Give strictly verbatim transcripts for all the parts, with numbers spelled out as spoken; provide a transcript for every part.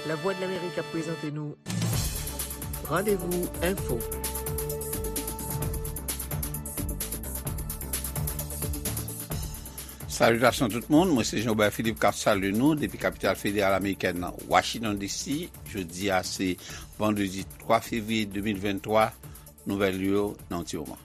Lavwadlamerik ap prezante nou Randevou Enfo. Salitasyon tout moun, mwen se Jean Robert Philippe k ap salye nou depi kapital federal amerikèn nan, Washington D C. Jodi a se vandredi twa fevriye de mil venntwa. Nouvèl yo nan yon ti moman.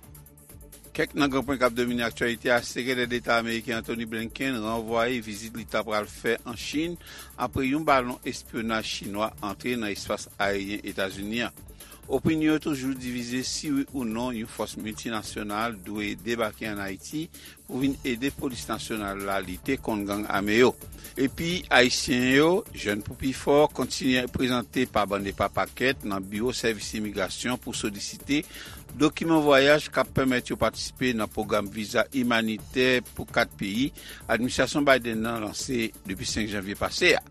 Kèk nan gran pwen k ap domine aktyalite a: Sekretè Deta ameriken Antony Blinken ranvwaye vizit li ta pral fè an Chin apre yon balon espyonaj chinwa antre nan espas ayeryen Etazini an. Opinyon yo toujou divize si wi ou non yon fòs miltinasyonal dwe debake ann Ayiti pou vin ede polis nasyonal la lite kont gang ame yo. Epi, Ayisyen yo, jèn pou pi fò, kontinye prezante pa bann e pa pakèt nan biwo sèvis imigrasyon pou solisite dokiman vwayaj k ap pèmèt yo patisipe nan pwogram viza imanitè pou kat peyi administrasyon Biden nan lanse depi senk janvye pase a.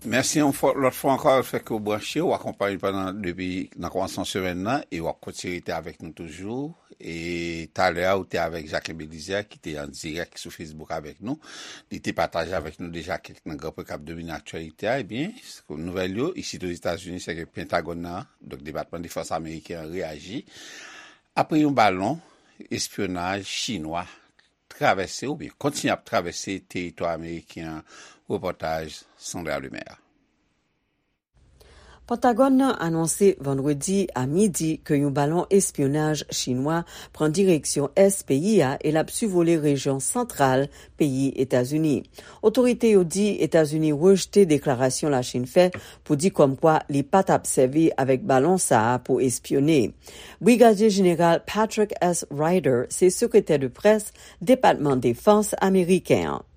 Mèsi yon fwa, lòt fwa ankò, lefètke w branche, w akonpanye pandan, depi nan kòmansman semèn nan, e w ap kontinye rete avèk nou toujou. E talè a, ou te avèk Jacquin Belizaire, ki te an dirèk sou Facebook avèk nou. Li te pataje avèk nou deja kèk nan gran pwen k ap domine aktyalite a. Ebyen, nouvèl yo, isit Ozetazini, se ke Pentagòn nan, donk Depatman Defans ameriken an, reyaji apre yon balon espyonaj chinwa travèse oubyen kontinye ap travèse teritwa ameriken an. Repòtaj Sandra Lemaire. Pentagòn nan anonse vandredi a midi ke yon balon espyonaj chinwa pran direksyon ès peyi a e l ap sivole rejyon santral peyi Etazini. Otorite yo di Etazini rejte deklarasyon Lachin fè pou di kòmkwa li pa t ap sèvi avèk balon sa a pou espyone. Brigadye Jeneral Patrick S. Ryder se sekretè de près Depatman Defans ameriken an.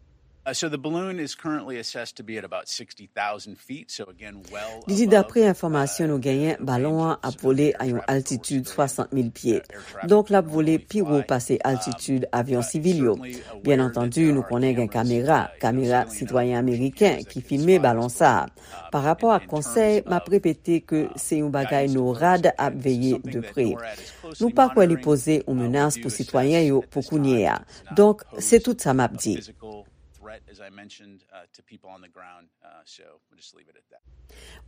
Uh, so the balloon is currently assessed to be at about sixty thousand feet, so again, well above, uh, air traffic. Li di, dapre enfòmasyon nou genyen, balon an ap vole a yon altitid swasant mil pye. Donk, l ap vole pi wo pase altitid avyon sivil yo. Byen antandi, nou konnen gen kamera, kamera sitwayen ameriken ki filme balon sa a. Pa rapò ak konsèy, m ap repete ke se yon bagay NORAD ap veye de pre. Nou pa kwè li poze yon menas pou sitwayen yo pou kounye a. Donk, se tout sa m ap di. Threat, as I mentioned, uh, to people on the ground. Uh, so we'll just leave it at that.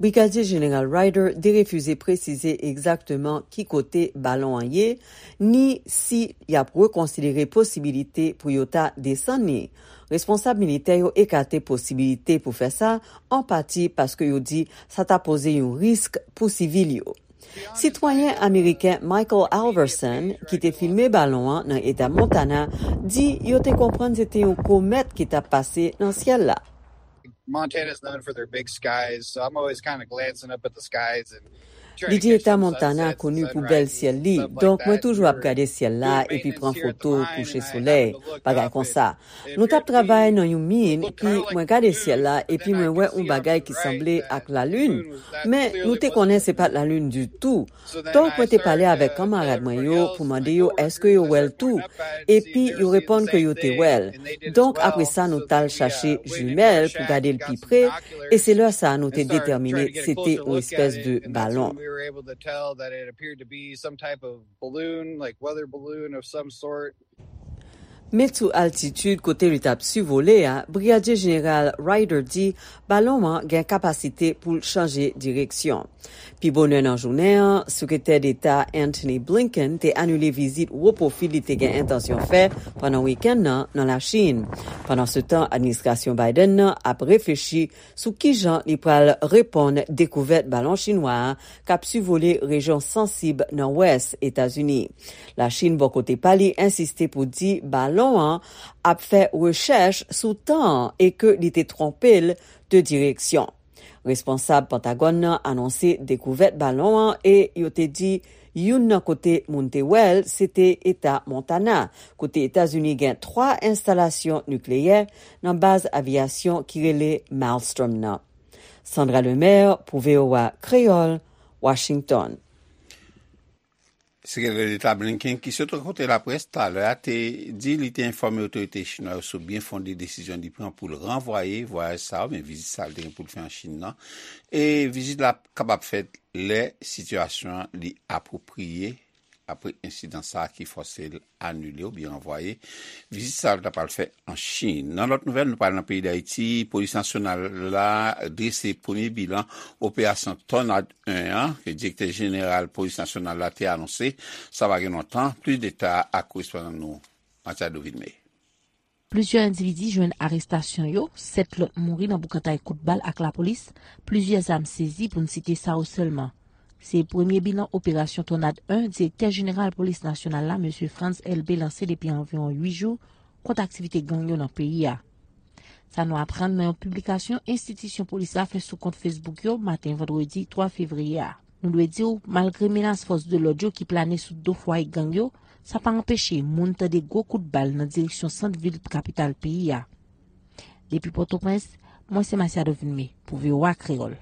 Brigadye Jeneral Ryder derefize presize egzakteman ki kote balon an ye, ni si y ap rekonsidere posibilite pou yo ta desann li. Responsab militè yo ekate posibilite pou fè sa, an pati paske yo di sa ta poze yon risk pou sivil yo. Sitwayen ameriken Michael Alverson, ki te filme balon an nan eta Montana, di yo te konprann se te yon komèt ki t ap pase nan syèl la. Montana's known for their big skies, so I'm always kind of glancing up at the skies and trying to catch some sunsets and sunrises and stuff like that. Li di eta Montana koni pou bèl syèl li, donk mwen toujou ap gade syèl la epi pran foto kouche solèy, bagay konsa. Nou t ap travay nan yon min, epi mwen gade syèl la, epi mwen wè yon bagay ki sanble ak lalin, men nou te konnen se pa t lalin ditou. Donk, mwen te pale avèk kanmarad mwen yo pou mande yo èske yo wè l tou, epi yo reponn ke yo te wè l. Donk, apre sa, nou t al chache jimèl pou gade l pi pre, e se lè sa a nou te detèmine se te yon espès de balon. Men sou altitid kote li t ap sivole a, Brigadye Jeneral Ryder di balon an gen kapasite pou l chanje direksyon. Pi bonè nan jounen an, Sekretè Deta Antony Blinken te anile vizit wo pwofi li te gen entansyon fè pandan wikenn nan nan Lachin. Pandansetan, administrasyon Biden nan ap reflechi sou kijan li pral reponn dekouvèt balon chinwa a k ap sivole rejyon sansib nan wès Etazini. Lachin, bò kote pa li, ensiste pou di balon an ap fè rechèch sou tan an e ke li te twonpe l de direksyon. Responsab Pentagòn nan anonse dekouvèt balon an e yo te di youn nan kote moun te wè l, se te eta Montana, kote Etazini gen twa enstalasyon nikleyè nan baz aviyasyon ki rele Maelstrom nan. Sandra Lemaire pou V O A Kreyòl, Washington. Sekretè Deta Blinken, ki sot rankontre laprès talè a, te di li te enfòme otorite chinwa yo sou byen fonde desizyon li pran pou l ranvwaye vwayaj sa a, oubyen vizit sa a li te gen pou l fè an Chin nan. E vizit la kapab fèt lè sitiyasyon an li apwopriye apre ensidan sa a ki fòse l anile oubyen ranvwaye vizit sa a l ta pral fè an Chin. Nan lòt nouvèl, nou pral nan peyi Dayiti. Polis nasyonal la drese premye bilan operasyon Tònad en an, ke direktè jeneral polis nasyonal la te anonse, sa pa gen lontan. Plis detay ak korespondan nou, Matiado Vilmé. Plizyè endividi jwenn arestasyon yo, sèt lòt mouri nan boukantay kout bal ak lapolis, plizyè zam sezi pou n site sa yo sèlman. Se premye bilan operasyon Tònad en direktè jeneral polis nasyonal la, mesye Frantz Elbé, lanse depi anviwon uit jou kont aktivite gang yo nan peyi a. Sa nou aprann nan yon piblikasyon enstitisyon polis la fè sou kont Facebook yo maten vandredi twa fevriye a. Nou dwe di w, malgre menas fòs de lòd yo ki plane sou do fwaye gang yo, sa pa anpeche moun tande gwo kout bal nan direksyon sant vil kapital peyi a. Depi Pòtoprens, mwen se Masiado Vilmé pou V O A Kreyòl.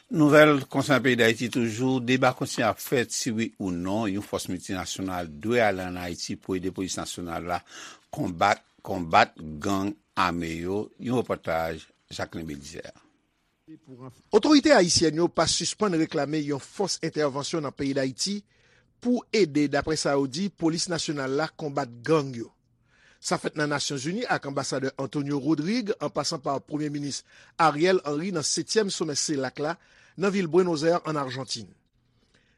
Nouvèl konsènan peyi Dayiti toujou, deba kontinye ap fèt si wi ou non yon fòs miltinasyonal dwe ale ann Ayiti pou ede polis nasyonal la konbat, konbat gang ame yo. Yon repòtaj Jacquelin Belizaire. Otorite ayisyèn yo pa sispann reklame yon fòs entèvansyon nan peyi Dayiti pou ede, daprè sa yo di, polis nasyonal la konbat gang yo. Sa fèt nan Nasyonzini ak anbasadè Antonio Rodrigue an pasan pa Premye Minis Ariel Henry nan setyèm somè CELAC la nan vil Buenos Aires ann Ajantin.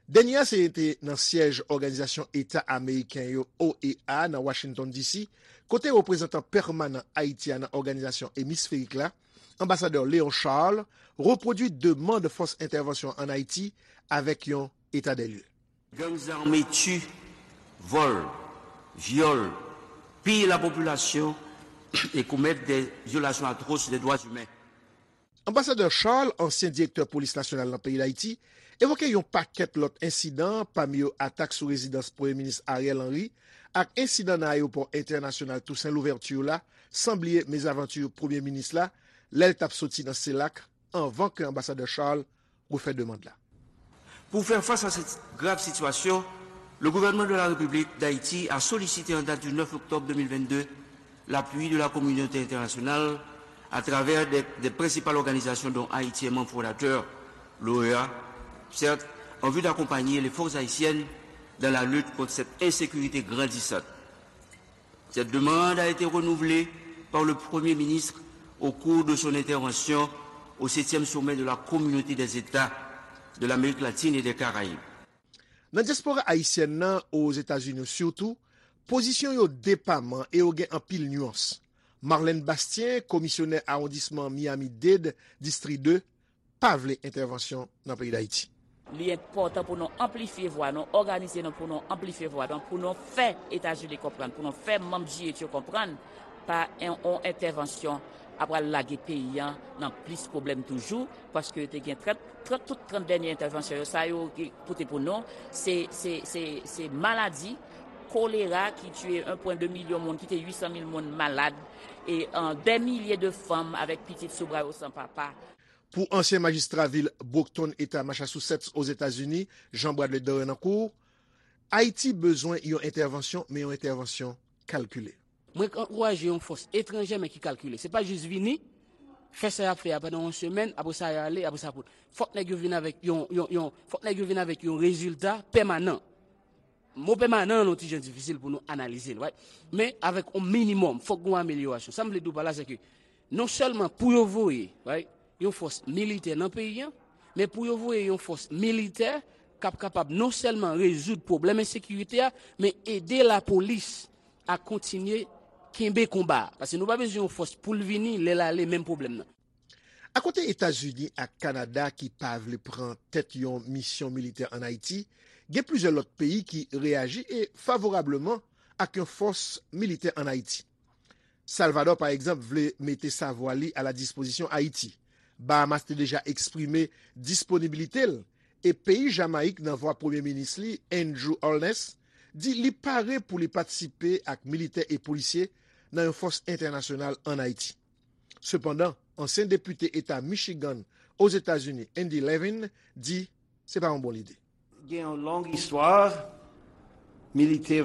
Dènye a se te nan syèj Òganizasyon Eta Ameriken yo, O E A, nan Washington D C, kote reprezantan pèmanan Ayiti a nan òganizasyon emisferik la, anbasadè Léon Charles, repwodui demann fòs entèvansyon ann Ayiti avèk yon etadèlye. Gangs armés tuent, volent, violent, pillent la population et commettent des violations atroces des droits humains. Anbasadè Charles, ansyen direktè polis nasyonal nan peyi Dayiti, evoke yon pakèt lòt ensidan, pami yo atak sou rezidans Premye Minis Ariel Henry ak ensidan nan ayewopò entènasyonal Toussaint Louverture la, san bliye mezavanti Premye Minis la lè l t ap soti nan CELAC anvan ke anbasadè Charles refè demann la. Pour faire face à cette grave situation, le gouvernement de la République d'Haïti a sollicité en date du neuf octobre deux mille vingt-deux l'appui de la communauté internationale à travers des, des principales organisations dont Haïti est membre fondateur, l'O E A, certes, en vue d'accompagner les forces haïtiennes dans la lutte contre cette insécurité grandissante. Cette demande a été renouvelée par le Premier ministre au cours de son intervention au septième sommet de la Communauté des États de l'Amérique latine et des Caraïbes. Nan dyaspora ayisyèn nan, Ozetazini sitou, pozisyon yo depaman e yo gen anpil nyans. Marlène Bastien, komisyonè awondisman Miami-Dade, Distri de, pa vle entèvansyon nan peyi Dayiti. Li enpòtan pou nou anplifye vwa nou, òganize nou pou nou anplifye vwa nou, pou nou fè Etazini konprann, pou nou fè manm G eight yo konprann, pa yon entèvansyon ap pral lage peyi a nan plis pwoblèm toujou, paske yo te gen trant, trant, tout trant dènye entèvansyon yo, sa yo pote pou nou, se, se, se, se maladi, kolera ki tiye en pwen de milyon moun, kite uit san mil moun malad, e dè milye de fanm avèk pitit sou bra yo san papa. Pou ansyen majistra vil Brockton, Eta Massachusetts, Ozetazini, Jean Bradley Dorenancourt, Ayiti bezwen yon entèvansyon, men yon entèvansyon kalkile. Mwen ankouraje yon fòs etranjè, men ki kalkile. Se pa jis vini, fè sa y ap fè a pandan yon semèn, apre sa y ale, apre sa pote. Fòk nèg yo vin avèk yon, yon, yon, fòk nèg yo vin avèk yon rezilta pèmanan. Mo pèmanan an yon ti jan difisil pou nou analize l, right? Men avèk yon minimòm, fòk gen yon amelyorasyon. Sa m vle di w pa la, se ke non sèlman pou yo voye, right, yon fòs militè nan peyi a, men pou yo voye yon fòs militè k ap kapab non sèlman rezoud pwoblèm ensekirite a, men ede lapolis a kontinye kenbe konba a. Paske nou pa bezwen yon fòs pou l vini, lè l ale, menm pwoblèm nan. Akote Etazini ak Kanada ki pa vle pran tèt yon misyon militè ann Ayiti, gen plizyè lòt peyi ki reyaji e favorableman ak yon fòs militè ann Ayiti. Salvadò, pa egzanp, vle mete savwa li a la dispozisyon Ayiti. Bahamas te deja eksprime disponibilite l, e peyi Jamayik, nan vwa Premye Minis li, Andrew Holness, di li pare pou li patisipe ak militè e polisye nan yon fòs entènasyonal ann Ayiti. Sepandan, ansyen depite eta Michigan, Ozetazini, Andy Levin, di se pa yon bon lide. Gen yon long istwa militè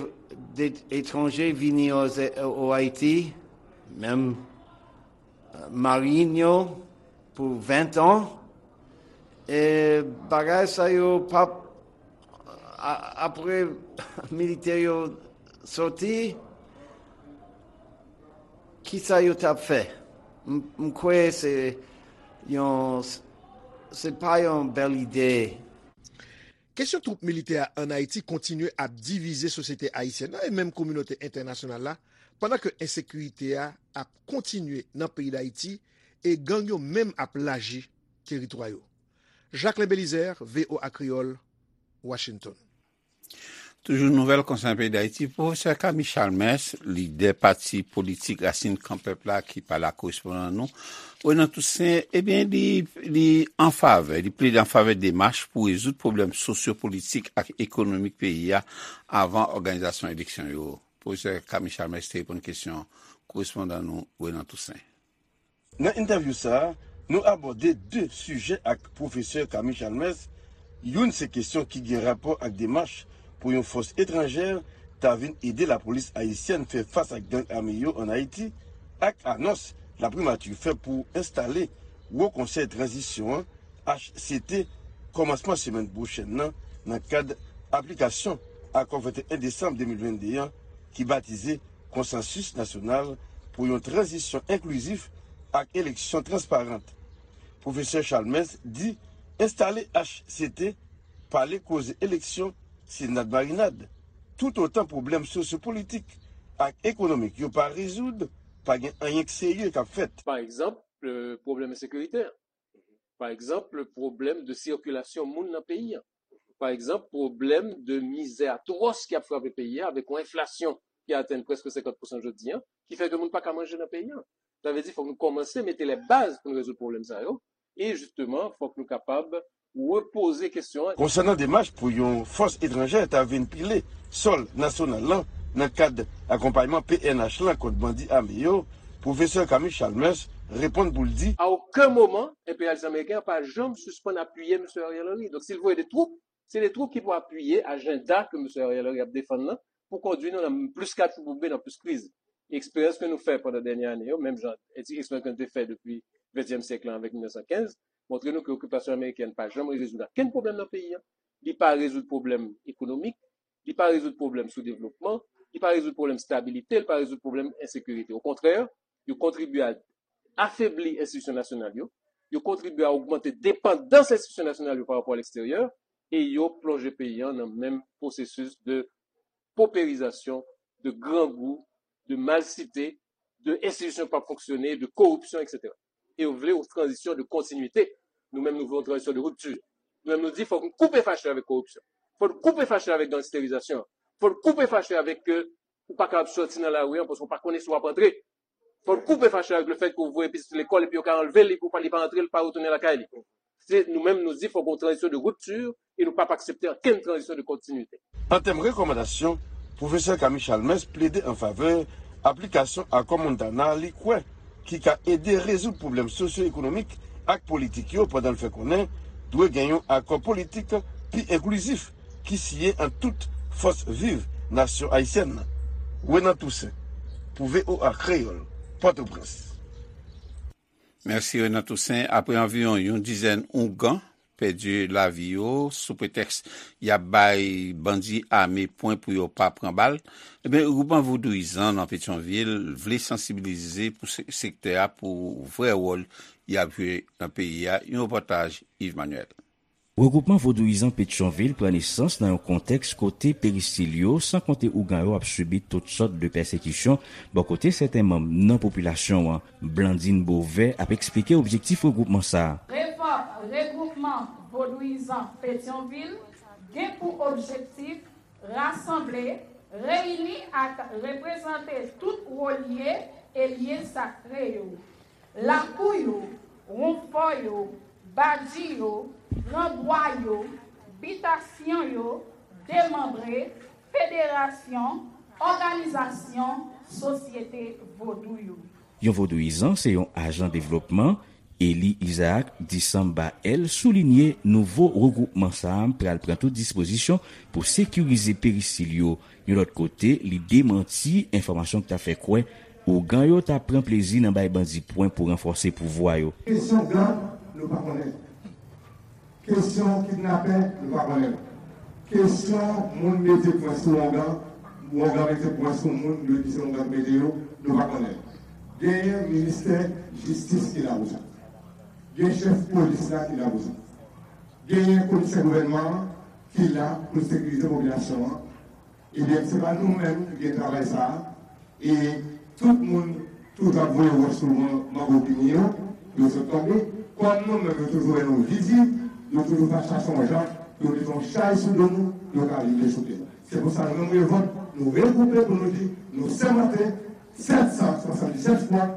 etranje vini o Ayiti, menm marin yo pou ven tan, e bagay sa yo p ap A- apre militè yo soti, kisa yo t ap fè? M m kwè se yon, se pa yon bèl ide. Kesyon twoup militè a ann Ayiti kontinye ap divize sosyete ayisyèn nan e menm kominote entènasyonal la, pandan ke ensekirite a ap kontinye nan peyi Dayiti e gang yo menm ap laji teritwa yo. Jacquelin Belizaire, V O A Kreyòl, Washington. Toujou nouvèl konsènan peyi Dayiti, pwofesè Camille Chalmers, lidè pati politik Rasin Kan Pèp la ki pale ak korespondan nou, Renan Toussaint, ebyen, li, li an favè, li plede an favè demach pou rezoud pwoblèm sosyo-politik ak ekonomik peyi a avan òganizasyon eleksyon yo. Pwofesè Camille Chalmers te reponn kesyon korespondan nou, Renan Toussaint. Nan entèvyou sa a, nou abòde de sijè ak pwofesè Camille Chalmers. Youn se kesyon ki gen rapò ak demach pou yon fòs etranjè ta vin ede lapolis ayisyèn fè fas ak gang ame yo ann Ayiti, ak anons laprimati fè pou enstale Wo Konsèy Tranzisyon an, H C T, kòmansman semèn pwochèn nan, nan kad aplikasyon Akò venteyen desanm de mil vennde an ki batize Konsansis Nasyonal pou yon Tranzisyon Enklizif ak Eleksyon Transparant. Pwofesè Chalmers di enstale H C T, pale koze eleksyon, se nadmarinad. Toutotan pwoblèm sosyopolitik ak ekonomik yo pa rezoud, pa gen anyen k serye k ap fèt. Pa egzanp, pwoblèm ensekiritè. Pa egzanp, pwoblèm de sikilasyon moun nan peyi a. Pa egzanp, pwoblèm de mizè atwòs ki ap frape peyi a avèk yon enflasyon ki atenn prèske senkant pousan jodi a, ki fè ke moun pa ka manje nan peyi a. Sa vle di fòk nou kòmanse mete lè baz pou nou rezoud pwoblèm sa yo. E jisteman, fòk nou kapab repoze kesyon an. Konsènan demach pou yon fòs etranjè ta vin pile sòl nasyonal lan nan kad akonpayman P N H lan kont bandi ame yo, pwofesè Camille Chalmers reponn pou l di. A okenn moman, enperyalis ameriken an pa janm sispann apiye mesye Ariel Henry. Donk, si l voye de twoup, se de twoup ki pou apiye ajanda ke mesye Ariel Henry ap defann nan pou kondui nou nan plis katastwòf oubyen nan plis kriz. Eksperyans ke nou fè pandan dènye ane yo, menm jan eksperyans ke nou te fè depi ventyèm syèk lan avèk mil nèf san kenz, montre nou ke okipasyon amerikèn pa janm rezoud okenn pwoblèm nan peyi a. Li pa rezoud pwoblèm ekonomik, li pa rezoud pwoblèm soudevlopman, li pa rezoud pwoblèm stabilite, li pa rezoud pwoblèm ensekirite. Okontrè, yo kontribye a afebli enstitisyon nasyonal yo, yo kontribye a ogmante depandans enstitisyon nasyonal yo pa rapò a leksteryè, e yo plonje peyi a nan menm pwosesis de poperizasyon, de grangou, de malsite, de enstitisyon k p ap fonksyone, de koripsyon, etsetera. E yo vle yon tranzisyon de kontinwite. Nou menm, nou vle yon tranzisyon de ripti. Nou menm, nou di, fòk nou koupe fache avèk koripsyon. Fòk nou koupe fache avèk gangsterizasyon. Fòk nou koupe fache avèk ke ou pa kapab sòti nan lari a paske ou pa konnen si w ap antre. Fòk nou koupe fache avèk lefèt ke ou voye pitit ou lekòl epi yo ka anlve l epi ou pa, li pa antre, l pa retounen lakay li. Se nou menm, nou di fòk gen yon tranzisyon de ripti e nou p ap aksepte okenn tranzisyon de kontinwite. An tèm rekòmandasyon, pwofesè Camille Chalmers plede an favè aplikasyon akò Montana li kwè ki ka ede rezoud pwoblèm sosyo-ekonomik ak politik yo pandan l fè konnen dwe gen yon akò politik pi enklizif ki siyen ant tout fòs viv nasyon ayisyèn nan. Renan Toussaint, pou V O A Kreyòl, Pòtoprens. Mèsi Renan Toussaint. Apre anviwon yon dizèn ougan pèdi lavi yo sou pretèks y ap bay bandi ame pwen pou yo pa pran bal, ebyen, regroupman vodouyizan nan Petyonvil vle sansibilize pou se- sektè a pou vrè wòl y ap jwe nan peyi a. Yon repòtaj Yves Manuel. Regroupman vodouyizan Petyonvil pran nesans nan yon kontèks kote peristil yo, san konte ougan yo, ap sibi tout sòt de pèsekisyon bò kote sèten manm nan popilasyon an. Blandine Beauvais ap eksplike objektif regroupman sa a. Revòk Regroupman Vodouyizan Petyonvil gen pou objektif rasanble, reyini ak reprezante tout wo lye e lye sakre yo, lakou yo, wonfò yo, badji yo, gran bwa yo, bitasyon yo, demanbre, federasyon, òganizasyon sosyete vodou yo. Yon vodouyizan se yon ajan devlopman. Eli Isaac Disamba El soulinye nouvo regwoupman sa a pral pran tout dispozisyon pou sekirize peristil yo. Yon lòt kote, li demanti enfòmasyon ki ta fè kwè ougan yo ta pran plezi nan bay bandi pwen pou ranfòse pouvwa yo. Kesyon gang, nou pa konnen. Kesyon kidnapè, nou pa konnen. Kesyon moun mete pwen sou ongan, ongan mete pwen sou moun, nou di se ongan ki mete yo, nou pa konnen. Genyen ministè jistis ki la pou sa. Gen chèf polis la ki la pou sa. Genyen komisè gouvènman an ki la pou sekirize popilasyon an. Ebyen, se pa nou menm ki gen travay sa a. E tout moun toujou ap voye wòch sou man-, mango pini yo, pou yo sot tonbe. Kòm nou menm, yo toujou wè nou vizib, yo toujou pa chache yon jan pou yo mete yon chay sou do nou, pou yo ka vin dechouke nou. Se pou sa, nou menm, Revòlt, nou regwoupe pou nou di, nou sèmante, sèt san swasanndisèt fwa,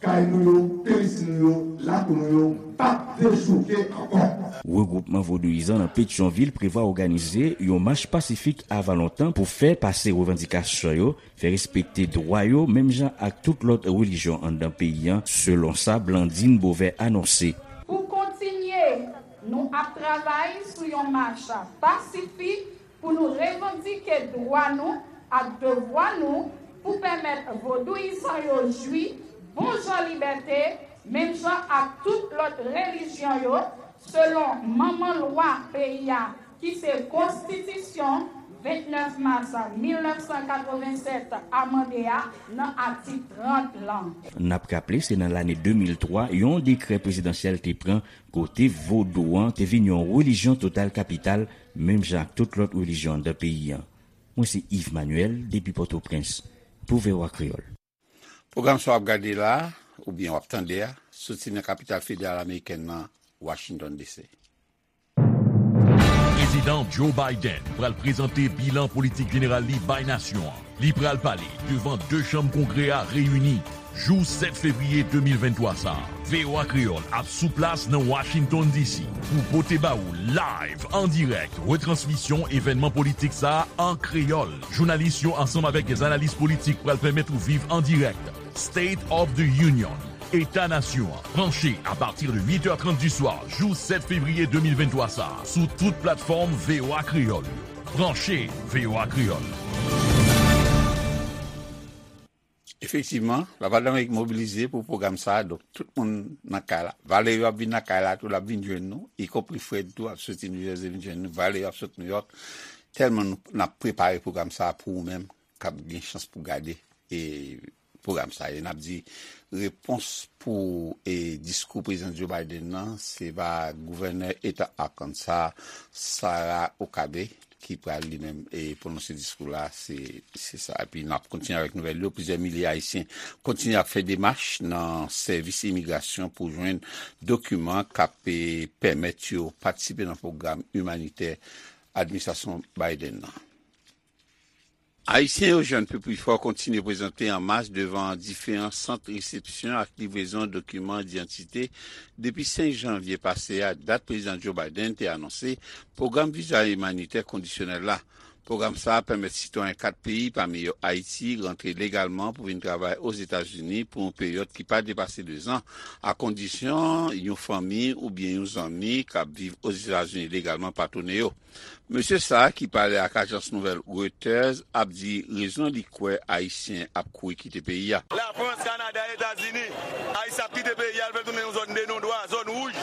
kay nou yo, peristil nou yo, lakou nou yo, p ap dechouke ankò. Regwoupman vodouyizan nan Petyonvil prevwa òganize yon mach pasifik avan lontan pou fè pase revandikasyon yo, fè respekte dwa yo, menm jan ak tout lòt relijyon anndan peyi a, selon sa Blandine Beauvais anonse. Pou kontinye, nou ap travay sou yon mach pasifik pou nou revandike dwa nou ak devwa nou pou pèmèt vodouyizan yo jwi bon jan libète, menm jan ak tout lòt relijyon yo, selon manman lwa peyi a, ki se Konstitisyon vennèf mas mil nèf san katrevennsèt amande a nan atik trant lan. N ap raple, se nan lane de mil twa, yon dekrè prezidansyèl te pran kote vodou an te vin yon relijyon total kapital, menm jan ak tout lòt relijyon anndan peyi a. Mwen se Yves Manuel, depi Pòtoprens, pou V O A Kreyòl. Pwogram sa w ap gade la, oubyen w ap tande a, soti nan kapital federal amerikèn nan, Washington D C. Prezidan Joe Biden pral prezante bilan politik jeneral li bay nasyon an. Li pral pale devan de chanm Kongrè a reyini jou sèt fevriye de mil venntwa sa a. V O A Kreyòl ap sou plas nan Washington D C pou pote ba ou live, an dirèk, retransmisyon evènman politik sa a an kreyòl. Jounalis yo ansanm avèk dè analis politik pral pèmèt ou viv an dirèk State of the Union, Eta Nasyon an, branche apati de uit è trant di swa, jou sèt fevriye de mil venntwa sa a, sou tout platfòm V O A Kreyòl yo. Branche V O A Kreyòl. Efektivman, Lavwadlamerik mobilize pou pwogram sa a, donk tout moun nan kay la. Valerio ap vin nan kay la tou, l ap vin jwenn nou, ikonpri Fred tou ap soti New Jersey vin jwenn nou, Valerio ap sot New York. Tèlman nou, n ap prepare pwogram sa a pou ou menm k ap gen chans pou gade e pwogram sa a. E n ap di repons pou e diskou Prezidan Joe Biden nan, se va gouvènè eta Arkansas, Sarah Huckabee, ki pral li menm e pwononse diskou la, se, se sa. Epi n ap kontinye avèk nouvèl yo. Plizyè milye Ayisyen kontinye ap fè demach nan sèvis imigrasyon pou jwenn dokiman k ap e pèmèt yo patisipe nan pwogram imanitè administrasyon Biden nan. Ayisyen yo Jeune Peuple Fort kontinye prezante an mas devan diferan sant resepsyon ak livrezon dokiman idantite depi senk janvye pase a, dat Prezidan Joe Biden te anonse pwogram viza imanitè kondisyonèl la. Pwogram sa a pèmèt sitwayen kat peyi, pami yo Ayiti, rantre legalman pou vin travay Ozetazini pou yon peryòd ki pa depase dezan, a kondisyon yon fanmi oubyen yon zanmi k ap viv Ozetazini legalman pa tounen yo. Mesye sa a, ki pale ak ajans nouvèl Reuters, ap di rezon li kwè Ayisyen ap kouri kite peyi a. Lafrans, Kanada, Etazini, Ayisyen ap kite peyi a, al fè tounen yon zòn de nondwa, zòn wouj.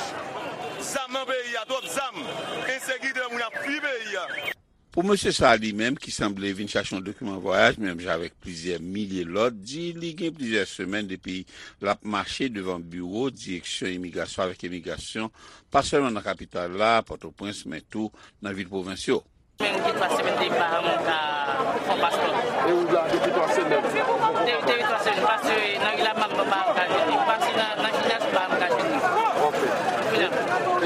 Zam nan peyi a, twòp zam, ensekirite, moun ap fui peyi a. Pou mesye sa a li menm, ki sanble vin chache yon dokiman vwayaj, menm jan avèk plizyè milye lòt, di li gen plizyè semèn depi l ap mache devan biwo Direksyon Imigrasyon avèk Imigrasyon, pa sèlman nan kapital la, Pòtoprens, men tou nan vil pwovens yo. Menm gen twa semèn depi m pa janm ka fè yon paspò. E ou la depi twa semèn? De-, depi twa semèn, paske nan ri la m pa ka jwenn li. Paske nan, nan jinyas m pa janm ka jwenn li. Ok. Kounye a,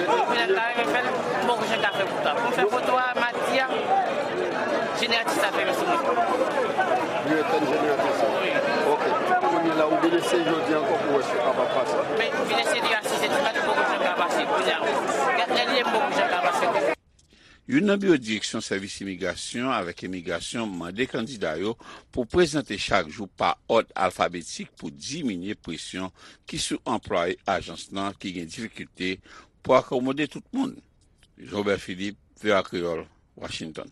kounye a m ta renmen fè l, m poko janm ka fè pou twa. Pou m fè foto a, m a di a, jeneratris la fèmen sou mwen. Li etèn jeneratris la? Wi. Ok. Kounye a la, ou vin eseye jodi ankò pou wè si w kapab pase? Men, m vin eseye deja sis è di maten, m poko janm ka pase. Kounye a, gad lè li ye, m poko janm ka pase. Youn nan biwo Direksyon Sèvis Imigrasyon avèk Imigrasyon mande kandida yo pou prezante chak jou pa òd alfabetik pou diminye presyon ki sou anplwaye ajans lan ki gen difikilte pou akomode tout moun. Jean Robert Philippe, V O A Kreyòl, Washington.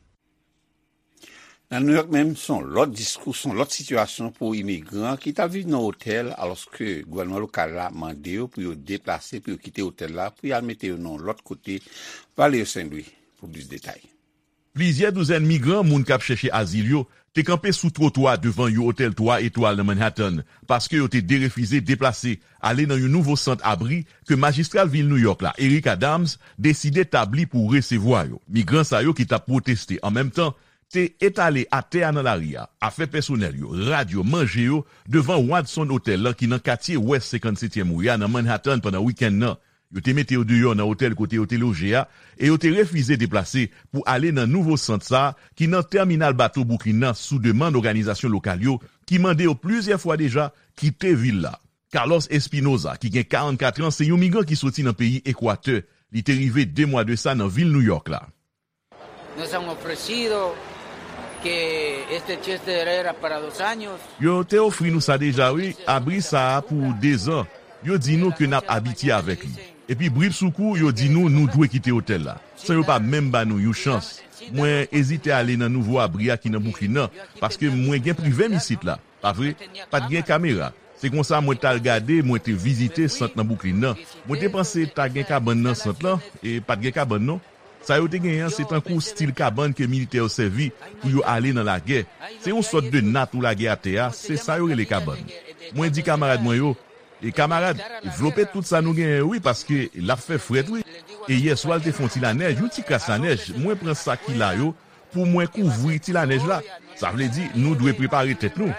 Nan Nouyòk menm, se yon lòt diskou, se yon lòt sitiyasyon pou imigran ki t ap viv nan otèl, alòske gouvènman lokal la mande yo pou yo deplase, pou yo kite otèl la, pou y al mete yo nan yon lòt kote, Valerio Saint Louis, pou plis detay. Plizyè douzèn migran, moun k ap chèche azil yo, te kanpe sou twotwa devan yon otèl twa etwal nan Manhattan, paske yo te derefize deplase ale nan yon nouvo sant abri ke majistra vil Nouyòk la, Eric Adams, deside tabli pou resevwa yo. Migran sa yo ki t ap pwoteste an menm tan te etale atè a nan lari a, afè pèsonèl yo, rad yo, manje yo, devan Watson Hotel lan ki nan katye West senkannsetyèm ri a nan Manhattan pandan wikenn nan. Yo te mete yo deyò nan otèl kote yo te loje a e yo te refize deplase pou ale nan nouvo sant sa a ki nan tèminal bato Bwouklin nan sou demann òganizasyon lokal yo ki mande yo plizyè fwa deja kite vil la. Carlos Espinoza, ki gen karannkat an, se yon migran ki soti nan peyi Ekwatè. Li te rive de mwa de sa nan vil Nouyòk la. Nos han ofrecido que este shelter era para dos años. Yo te ofri nou sa deja, wi, abri sa a pou dezan. Yo di nou ke n ap abitye avèk li. Epi, bripsoukou, yo di nou nou dwe kite otèl la, san yo pa menm ba nou yon chans. Mwen ezite ale nan nouvo abri a ki nan Bwouklin nan, paske mwen gen prive m isit la. Pa vre? Pa t gen kamera. Se konsa mwen t al gade, mwen te vizite sant nan Bwouklin nan. Mwen te panse ta gen kabann nan sant lan, e pa t gen kabann non. Sa yo te genyen an, se tankou stil kabann ke militè yo sèvi pou yo ale nan lagè. Se yon sòt de nat ou lage atè a, se sa yo rele kabann. Mwen di kamarad mwen yo, e kamarad, vlope tout sa nou genyen yo wi, paske l ap fè frèt wi. E yèswa l te fè yon ti lanèj, yon ti kras lanèj, mwen pran sa ki la yo, pou mwen kouvri ti lanèj la. Sa vle di, nou dwe prepare tèt nou.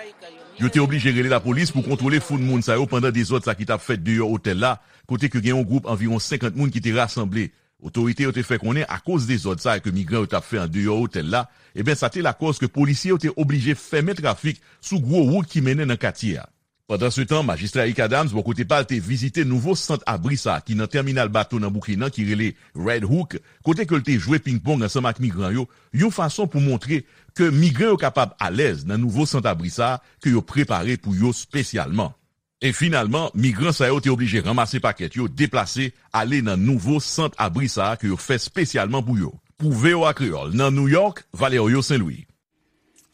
Yo te oblije rele lapolis pou kontwole foul moun sa yo pandan dezòd sa ki t ap fèt deyò otèl la, kote ke gen yon gwoup anviwon senkant moun ki te rasanble. Otorite yo te fè konnen akoz dezòd sa ke migran yo t ap fè andeyò otèl la, ebyen sa te lakòz ke polisye yo te oblije fèmen trafik sou gwo wout ki mennen nan katye a. Pandansetan, majistra Eric Adams, bò kote pa l, te vizite nouvo sant abri sa a ki nan tèminal bato nan Bwouklin nan ki rele Red Hook, kote ke l te jwe ping-pong ansanm ak migran yo, yon fason pou montre ke migran yo kapab alèz nan nouvo sant abri sa a ke yo prepare pou yo espesyalman. E finalman, migran sa yo te oblije ranmase pakèt yo, deplase, ale nan nouvo sant abri sa a ke yo fè espesyalman pou yo. Pou V O A Kreyòl, nan Nouyòk, Valerio Saint Louis.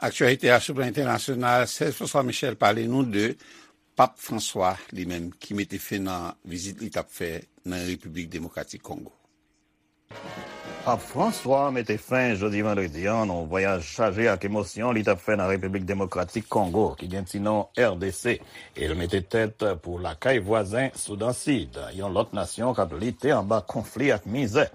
Aktyalite a sou plan entènasyonal, Serge François Michel pale nou de Pap Franswa, li menm, ki mete fen nan vizit li t ap fè nan Repiblik Demokratik Kongo. Pap Franswa mete fen jodi vandredi a nan yon vwayaj chaje ak emosyon li t ap fè nan Repiblik Demokratik Kongo, ki gen ti non R D C, e l mete tèt pou lakay vwazen Soudan Sid, yon lòt nasyon k ap lite anba konfli ak mizè.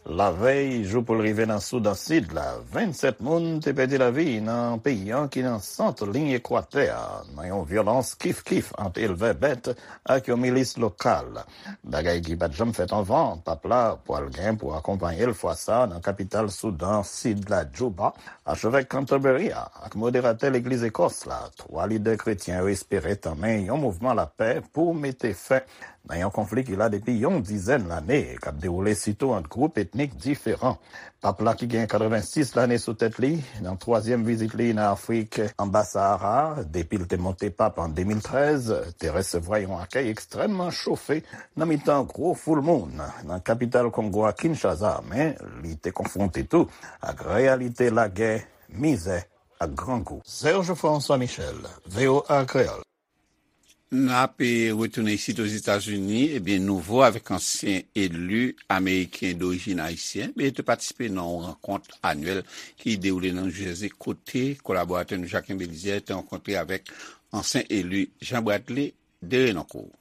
Lavèy jou pou l rive nan Soudan Sid la, vennsèt moun te pèdi lavi nan peyi an ki nan sant liy ekwatè a, nan yon vyolans kif-kif ant elvè bèt ak yon milis lokal. Bagay ki pa t janm fèt anvan, pap la pwal gen pou akonpaye l fwa sa a nan kapital Soudan Sid la, Djouba, achevèk Canterbury a ak moderatè legliz Ekòs la. Twa lidè kretyen yo espere tanmen yon mouvman lapè pou mete fen nan yon konfli ki la depi yon dizèn lane, k ap dewoule sitou ant gwoup etnik diferan. Pap la ki gen katrevensis lane sou tèt li, nan twazyèm vizit li nan Afrik anba Sahara, depi l te monte pap an de mil trèz, te resevwa yon akèy ekstrèmman chofe nan mitan gwo foul moun nan kapital Kongo a, Kinshasa, men li te konfwonte tou ak reyalite lagè, mizè ak grangou. Serge François Michel, V O A Kreyòl. N ap, eh, retounen isit Ozetazini, ebyen, nouvo avèk ansyen eli ameriken dorijin ayisyen, ebyen, te patisipe nan yon rankont anyèl ki dewoule nan New Jersey, kote kolaboratè nou Jacquin Belizaire te rankontre avèk ansyen eli Jean Bradley Derenoncourt.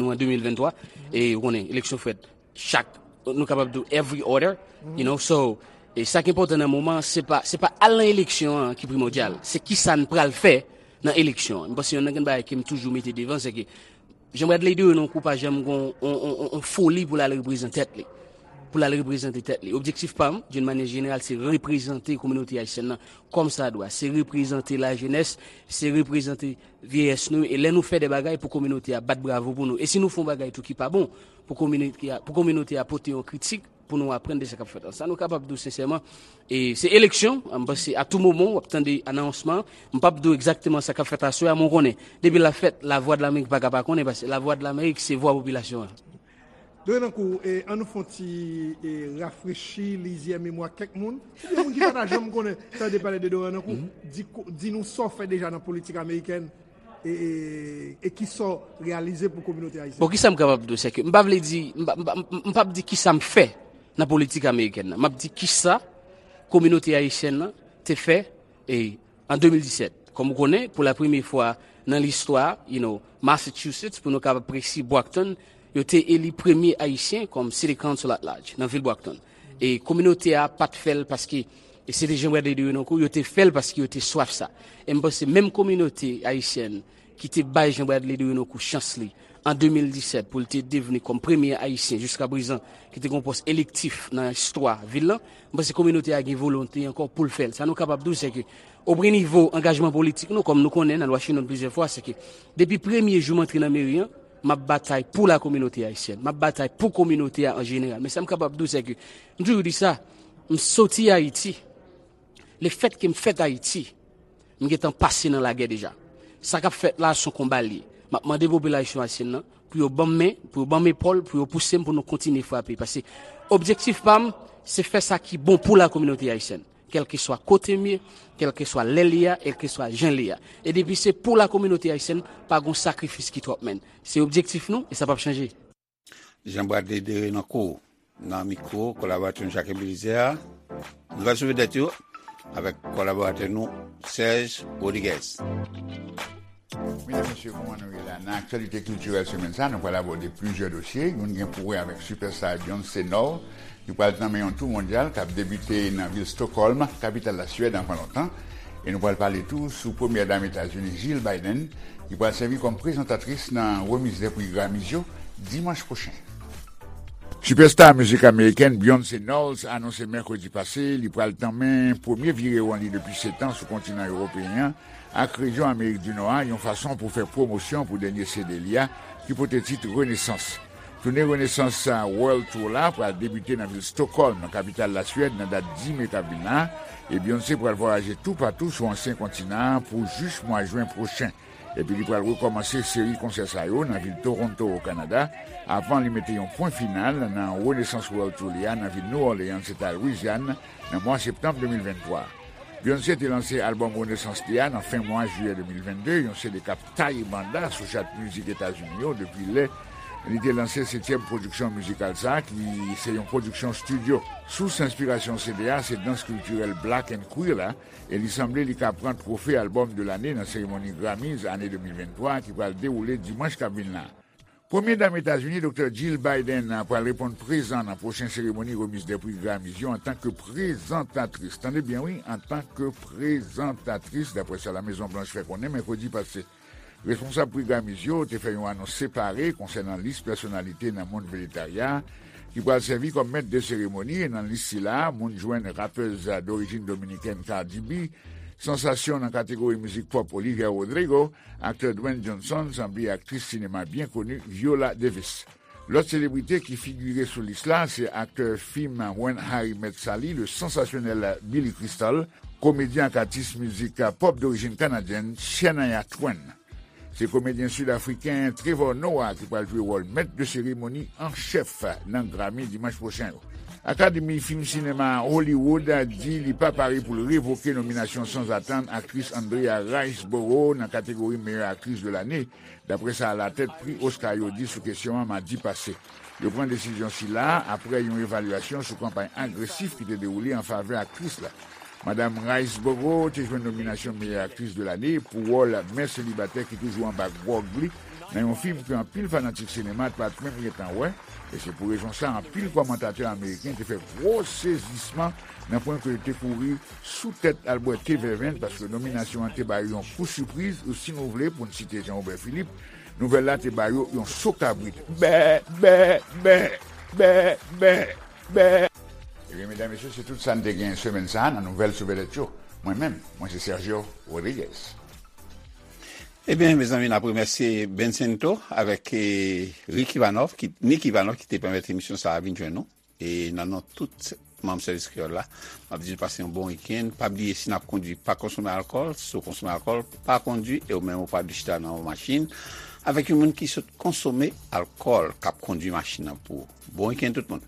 Nou an de mil venntwa, e ou konnen, eleksyon fèt chak, nou kapab di every other, you know, so, e sa ki enpòtan nan moman an, se pa, se pa al nan eleksyon an ki primòdyal, se kisa n pral fè nan eleksyon an. M panse yonn nan grenn bagay ke m toujou mete devan, se ke Jean Bradley Derenoncourt pa janm gen yon, yon, yon, yon foli pou l al reprezante tèt li. Pou l al reprezante tèt li. Objektif pa m, d'une manière générale, se reprezante kominote ayisyèn nan kòmsadwa. Se reprezante lajenès, se reprezante vyeyès nou. E lè nou fè de bagay pou kominote a bat bravo pou nou. E si nou fè yon bagay tou ki pa bon, pou kominote a, pou kominote a pote yon kritik, pou nou aprann de sa k ap fèt la. Sa nou kapab di w sensèman, e se eleksyon, m panse a tou moman w ap tande anonsman, m p ap di w egzakteman sa k ap fèt aswè a, men w konnen, depi l ap fèt, Lavwadlamerik pa ka pa konnen, paske Lavwadlamerik se vwa popilasyon an. Dorenankou, e, an nou fè yon ti, e, rafrechi lizyè memwa kèk moun. Oubyen moun ki pa ta janm konnen, tande pale de Dorenankou, di, di nou sa w fè deja nan politik amerikèn, e, e, e ki sa w reyalize pou kominote ayisyèn. Bon, kisa m kapab di w, se ke m pa vle di, m pa, m pa, m p ap di kisa m fè nan politik amerikèn nan. M ap di kisa Kominote ayisyèn nan te fè e, an de mil disèt. Kòm ou konnen, pou la premye fwa nan listwa, you know, Massachusetts, pou nou kapab presi, Brockton, yo te eli premye Ayisyen kòm City Council at Large nan vil Brockton. E kominote a pa t fè l paske e se te Jean Bradley de Renocourt, yo te fè l paske yo te swaf sa. E m panse menm kominote ayisyèn ki te bay Jean Bradley de Renocourt chans li an de mil disèt pou l te devni kòm premye Ayisyen jiska prezan ki te gen yon pòs elektif nan istwa vil lan, m panse kominote a gen volonte ankò pou l fè l. Sa nou kapab di w, se ke, o premye nivo angajman politik nou, kòm nou konnen, n al Washington plizyè fwa, se ke depi premye jou m antre nan meri an, m ap batay pou la kominote ayisyèn, m ap batay pou kominote a an jeneral. Men sa m kapab di w, se ke, m toujou di sa, m soti Ayiti, lefètke m fèt Ayiti, m gentan pase nan lagè deja. Sa k ap fèt la, se yon konba l ye. M ap mande popilasyon ayisyèn nan pou yo ban m men, pou yo ban m epòl, pou yo pouse m pou nou kontinye frape. Paske objektif pa m, se fè sa ki bon pou la kominote ayisyèn. Kèlkeswa kote m ye, kèlkeswa lè l ye a, kèlkeswa jan l ye a. E depi se pou la kominote ayisyèn, pa gon sakrifis ki twòp, menn. Se objektif nou, e sa p ap chanje. Jean Bradley Derenoncourt nan mikwo kolaboratè nou Jacques Belizaire. Nouvèl sou vedèt yo avèk kolaboratè nou Serge Rodriguez. Medam, mesye, kòman nou ye la? Nan aktyalite kiltirèl semèn sa, nou pral abòde plizyè dosye. Youn gen pou wè avèk sipèsta Beyoncé Knowles, ki pral tanmen yon tou mondyal k ap debite nan vil Stockholm, kapital Laswèd, anvan lontan. E nou pral pale tou sou premyè dam Etazini, Jill Biden, ki pral sèvi kòm prezantatris nan remiz dè pri Grammys yo dimanch pwochen. Sipèsta mizik amerikèn Beyoncé Knowles anonse mèkredi pase li pral tanmen premye virewon li depi sèt an sou kontinan ewopeyen an ak rejyon Amerik di Nò a, yon fason pou fè pwomosyon pou dènye C D li a, ki pote tit Renesans. Toune Renesans World Tour la pral debite nan vil Stockholm, kapital Laswèd, nan dat dis me k ap vin la, e Beyoncé pral vwayaje toupatou sou ansyen kontinan an pou jis mwa jen pwochen. Epi li pral rekòmanse seri konsè sa yo nan vil Toronto, o Kanada, avan li mete yon pwen final nan Renesans World Tour li a nan vil New Orleans, eta Louisiane, nan mwa septanm de mil venntwa. Beyoncé te lanse albòm Renesans li a nan fen mwa jiyè de mil vennde, yon C D k ap taye banda sou chat mizik Etazini yo depi lè li te lanse setyèm pwodiksyon mizikal sa a, ki se yon pwodiksyon estidyo. Sous enspirasyon C D a se dans kiltirèl Black and Queer la, e li sanble li ka pran twofe albòm de lane nan seremoni Grammys ane de mil venntwa ki pral dewoule dimanch k ap vin la. Premye dam Etazini, Doktè Jill Biden, pral reponn prezan nan pwochen seremoni remiz dè pri Grammys yo antanke prezantatris. Tande byen wi, antanke prezantatris, daprè sa La Mezon Blanch fè konnen mèkredi pase. Responsab pri Grammys yo te fè yon anons separe konsènan lis pèsonalite nan mond vejetarya ki pral sèvi kòm mèt de seremoni, e nan lis sila a, moun jwenn rapèz dorijin dominikèn Cardi B, sansasyon nan kategori mizik pòp Olivia Rodrigo, aktè Dwayne Johnson, sanble aktris sinema byen koni Viola Davis. Lòt selebrite ki figire sou lis la se aktè fim When Harry Met Sally, le sansasyonèl Billy Crystal, komedyen ak atis mizik pòp dorijin kanadyèn Shania Twain. Se komedyen sid-afriken Trevor Noah ki pral jwe wòl mèt de seremoni an chèf nan Grammy dimanch pwochen yo. Akademi fim sinema Hollywood di li pa pare pou l revoke nominasyon sanzatann aktris Andrea Riseborough nan kategori meyè aktris de lane, daprè sa latèt pri Oscar yo di sou kesyon an madi pase. Yo pran desizyon sila a apre yon evalyasyon sou kanpay agresif ki te dewoule an favè aktris la. Madam Riseborough te jwenn nominasyon meyè aktris de lane pou wòl mè selibatè ki toujou anba gwòg li nan yon fim ke anpil fanatik sinema t pa t menm gentan wè, e se pou rezon sa anpil kòmantatè ameriken te fè gwo sezisman nan pwen ke yo te kouri sou tèt al bwè te vèvenn, paske nominasyon an te ba yo yon kou sipriz, ou si nou vle, pou n site Jean Robert Philippe, nouvèl la te ba yo yon so kabrit. Bè, bè, bè, bè, bè, bè. Ebyen, medam, mesye, se tout sa n te gen semèn sa a nan nouvèl sou vedèt yo. Mwen menm, mwen se Sergio Rodriguez. Ebyen, mezanmi, n ap remèsye Bencento avèk, eh, Rick Ivanov, ki, Nick Ivanov, ki te pèmèt emisyon sa a vin jwenn nou. E nan non tout manm sèvis kreyòl la, m ap di nou pase yon bon wikenn. Pa bliye, si n ap kondui, pa konsome alkòl. Si w konsome alkòl, pa kondui. E ou menm, ou pa dwe chita nan yon machin avèk yon moun ki sot konsome alkòl, k ap kondui machin nan pou ou. Bon wikenn, tout moun.